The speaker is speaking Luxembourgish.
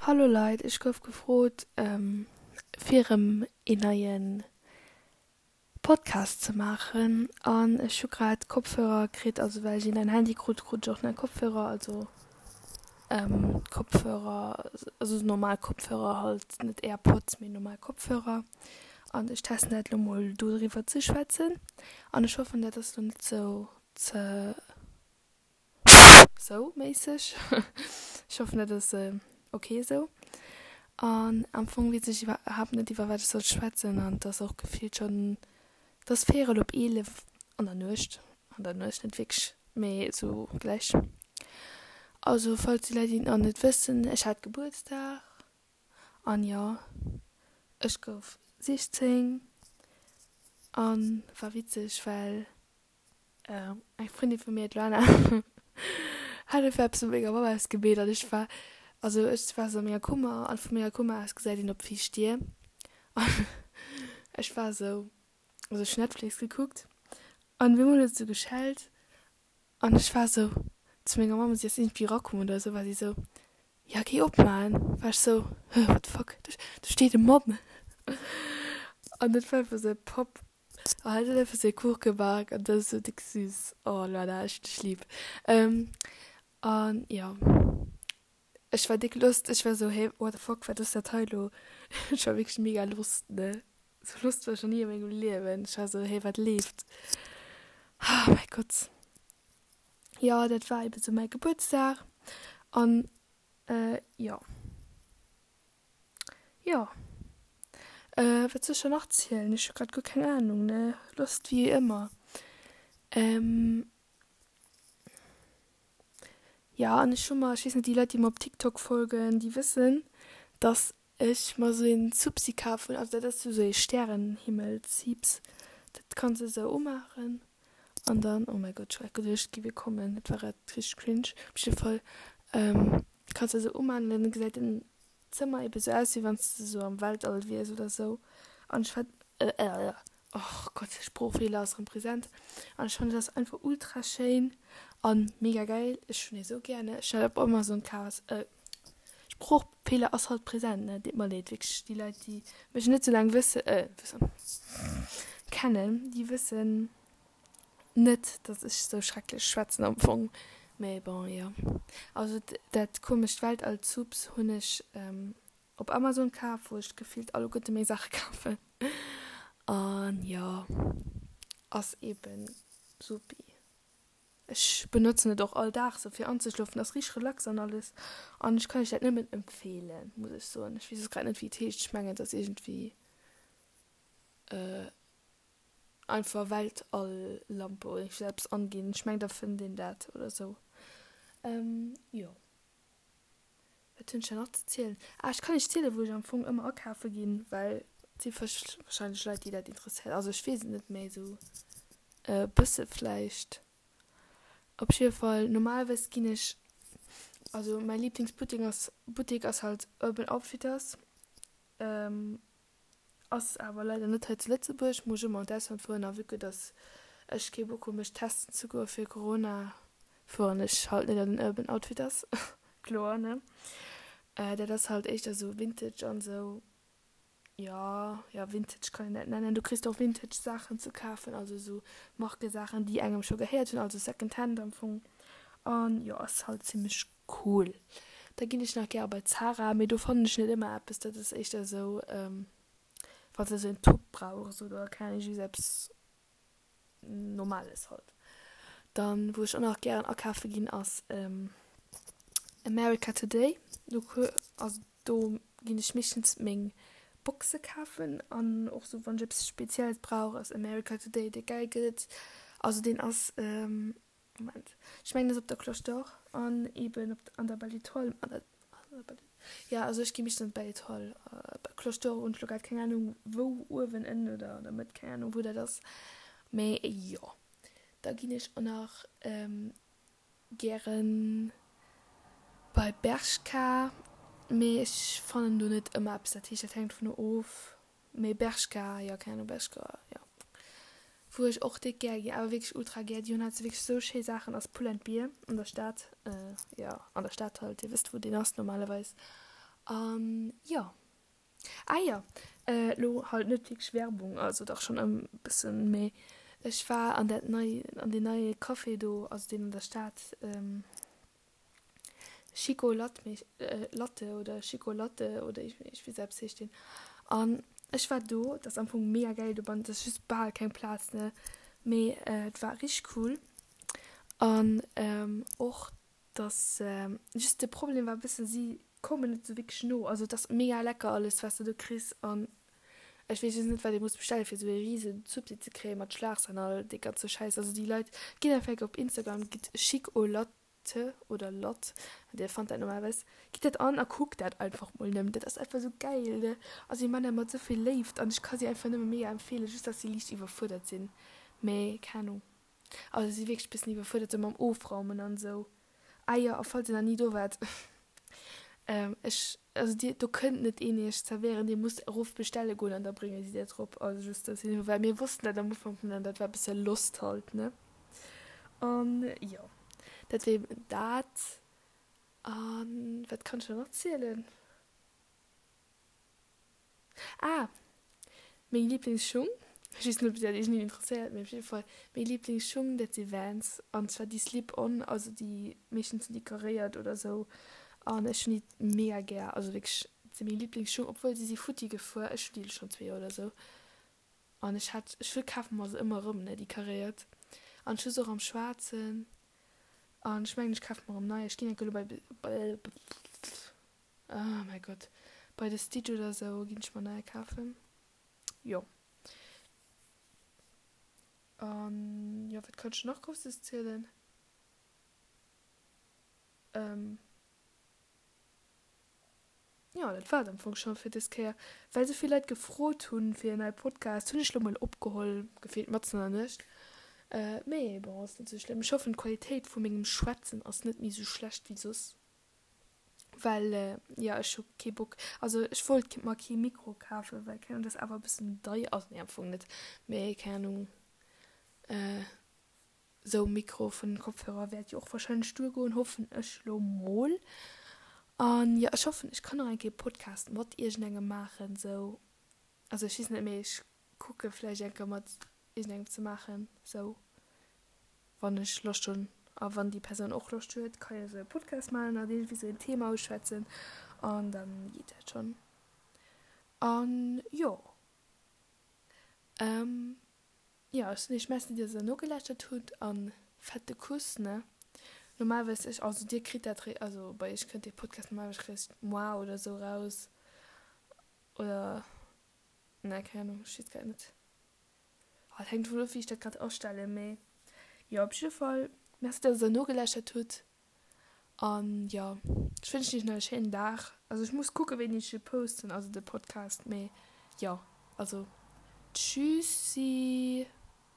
Hallo Leit, ech gouf gefrot fir erëm een neien Podcast ze maachen an ech hu grad Kopfhörer kritt, also well ech een neien Handy krut, krut ech och nei Kopfhörer, also Kopfhörer, also normal Kopfhörer halt, net Airpods mee normal Kopfhörer an ech testen dat elo mol do driwwer ze schwätzen an ech hoffen dat ass elo net sou ze Sou méisseg. Ech hoffen dat ass ok esou. An am Fong weess ech iwwerhaapt net iwwer wat ech soll schwätzen an et ass och gefillt schonn, et ass véierel op 11 an der Nuecht, an der Nuecht net wierklech, mee esou gläich. Also falls déi Leit déi et nach net wëssen, ech hat Gebuertsdag an jo ech gouf 16 an war witzeg well Eng Frëndin vu mir, d'Luana, hat einfach eppes mat menger Mamm ausgemeet an ech war, also ech war sou a menger Kummer an vu menger Kummer aus gesäit een op d'viischt Dier an ech war sou, also ech hunn Netflix gekuckt an op eemol huet et sou geschellt an ech war sou zu menger Mamm, si ass iergendwéi erakomm oder sou, war si sou, ja géi opmaachen, war ech sou, hä what the fuck, do steet e Mann an dat war einfach sou e Papp. Oh, hat huet einfach sou ee Kuch gebak an dat ass sou déck süß. Oh Luana, ech hunn dech lieb. An jo, ech war déck lost. Ech war sou, hey, what the fuck, wat ass dat hei elo? Ech war wierklech mega lost, ne? Sou lost war ech nach ni a mengem Liewen. Ech war sou, hey, wat leeft? Oh mäi Gott. Jo, dat war eben sou mäi Gebuertsdag. An jo. Jo. Wat soll ech dann nach zielen? Ech hu grad guer keng Ahnung, ne? Lost wéi ëmmer. Jo, an ech hu mer, ech weess net, déi Leit, déi mer op TikTok folgen, déi wëssen, dass ech mer esou een Zupsi kaf hunn. Also dat ass esou ee Stärenhimmel-Ziips. Dat kanns de esou umaachen an dann, oh mäi Gott, ech hu grad geduecht, et géif ee kommen. Dat war grad richteg cringe. Op jidde Fall kanns de esou umaachen an dann gesäit den Zëmmer eben sou aus wéi wanns de sou am Weltall wiers oder sou an ech fand och Gott Sproochfeeler ass rem präsent an ech fannen dat ass einfach ultra schéin an mega geil ech hunn ee sou gär ne ech hat op Amazon kaf Sproochfeeler ass halt präsent ne deet mer leed wierklech déi Leit déi mech net sou laang wësse wëssen kennen déi wëssen Net dass ech sou schrecklech schwätzen am Fong, mee bon jo. Also dat komescht Weltall-Zubs hunn ech op Amazon kaf, wou ech gefillt alleguerte meng Saache kafen. An jo, ass eben supi. Ech benotzen et och all Dag sou fir anzeschlofen, ass richteg relax an alles. An ech kann iech dat nëmmen empfehlen, muss ech soen. Ech weess och grad net wéi et heescht, ech mengen et ass iergendwéi. Einfach Weltall-Lampe oder iergendwéi eppes anginn. Ech mengen da fënnt een dat oder sou. Jo. Wat hunn ech dann nach ze zielen? Ah, ech kann iech zielen, wou ech am Fong ëmmer akafe ginn, well et si warscheinlech Leit, déi dat interesséiert. Also ech weess et net méi esou e bësse vläicht. Op jidde Fall, normalerweis ginn ech, also mäi Liblingsbuttek ass, Buttek ass halt Urban Outfitters. Ass awer leider net hei zu Lëtzebuerg, muss ech ëmmer an d'Ausland fueren a vue que dass ech kee Bock hu mech testen ze goe fir Corona, fueren ech halt net an den Urban Outfitters, kloer ne. Dat ass halt éischter sou Vintage an sou, jo, jo Vintage kann een dat nennen, du kriss och Vintage Saachen ze kafen, also sou Markesaachen déi engem scho gehéiert hunn, also Second Hand am Fong an jo ass halt zimmlech Cool. Da ginn ech nach gäre bei Zara, mee do fannen ech net ëmmer eppes. Dat ass éischter esou, wann s de esou en Top brauchs oder keng Ahnung, just eppes Normales halt. Dann, wou ech och nach gären akafe ginn, ass America Today. Do, also do ginn ech meeschtens meng Boxe kafen an och sou wann ech eppes Spezielles brauch, ass America Today dee gäil gëtt. Also deen ass. Moment, ech mengen ass op der Cloche d'Or an eben op an der Belle Etoile, an der, an der Belle, ja also ech gi meeschtens an d'Belle Etoile, Cloche d'Or hunn ech lo grad keng Ahnung wou, uewen, ënnen oder an der Mëtt, keng Ahnung wou dat ass, mee jo. Da ginn ech och nach gären bei Bershka, mee ech fannen do net ëmmer eppes, dat heescht dat hänkt dovunner of. Mee Bershka, jo keng Ahnung, Bershka, jo. Wou ech och déck gär ginn, awer wierklech ultra gär, déi hunn halt wierklech sou schéi Saachen, ass Pull and Bear an der Stad, jo an der Stad halt, dir wësst wou deen ass normalerweis. An jo. Ah jo, elo halt net wierklech Werbung, also dach schonn e bëssen, mee ech war an dat nei, an deen neie Café do, also deen an der Stad, Chico Latte, Latte oder Chico Latte oder ech weess eppes heescht deen. An ech war do, et ass am Fong mega gäil dobannen, et ass just bal keng Plaz, ne, mee et war richteg cool an och dass just de Problem war e bëssen, si koumen net sou wierklech no. Also et ass mega lecker alles wat s de do kriss an ech weess just net wat ee muss bestellen fir sou ee rise Zuppi ze kréien mat Schlagsahn an all dee ganze Schäiss. Also déi Leit, gitt einfach eng Kéier op Instagram, gitt Chic au Latte oder Latt, dir fannt dat normalerweis, gitt dat an a kuckt dat einfach mol nëmmen. Dat ass einfach sou gäil ne. Also si man dat mat sou vill Léift an ech ka si einfach nëmme mega empfeelen, just dass si liicht iwwerfuerdert sinn, mee keng Ahnung. Also si wierklech bëssen iwwerfuerdert sou mam Ofraumen an esou. Ah jo, a falls dir nach ni do waart, ech, also dir, do kënnt net een iech zerwéieren, dir musst erof bestelle goen an da brénge si dat rop. Also just dass een, well mir wossten dat am Ufank net an dat war bësse lost halt, ne. An jo, dat wier eben dat. An wat kann ech nach erzielen? Ah! Meng Lieblingsschung, ech weess net ob dat iergendeen interesséiert, mee op jidde Fall meng Lieblingsschung dat si Vans an zwar déi Slip on, also déi meeschtens sinn déi karéiert oder sou an ech hunn déi mega gär, also wierklech dat si meng Lieblingsschung, obwuel si si futti gefuer, ech hunn déi elo schonn zwee Joer oder sou an ech hat ech kafe mer se ëmmer erëm ne déi karéiert an ech hu se och am schwaarzen an ech mengen ech kafe mer erëm nei, ech ginn enke elo bei Oh mäi Gott, bei de Stitch oder sou ginn ech mer neier kafen. Jo. An jo, wat kann ech nach Grousses zielen? Ähm. Jo, dat war et am Fong scho fir dës Kéier. Well sou vill Leit gefrot hunn fir en neie Podcast, hunn ech lo mol opgeholl, gefillt matzen an der Nuecht. Mee bon, ass net sou schlëmm. Ech hoffen d'Qualitéit vu mengem Schwätzen ass net méi sou schlecht wéi soss. Well jo ech hu kee Bock, also ech wollt mer kee Mikro kafen, well keng Ahnung, dat ass awer e bëssen deier, also nee am Fong net, mee keng Ahnung, esou Mikro vun den Kopfhörer wäert jo och wahrscheinlech duergoen, hoffen ech lo mol. An jo ech hoffen ech kann nach eng Kéier Podcast mat iergendengem maachen esou, also ech weess net, mee ech kucke vläicht eng Kéier mat iergendengem ze maachen esou. Wann ech Loscht hunn a wann déi Persoun och Loscht huet, ka jo esou e Podcast maachen an iergendwéi esou en Thema uschwätzen an dann geet dat schonn. An jo, jo, ech soen iech Merci, dass der nogelauschtert hutt an fette Kuss, ne? Normalerweis, ech, also dir kritt dat, also bei iech kënnt dee Podcast normalerweis eréischt moar oder esou raus oder, ne, keng Ahnung, ech weess grad net. Oh, et hänkt dovun of, wéi ech dat grad astellen, mee jo, op jidde Fall Merci, dass der nogelauschtert hutt an jo, ech wënschen iech nach e schéinen Dag. Also ech muss kucken, wéini ech e posten, also de Podcast, mee jo, also tschüssi.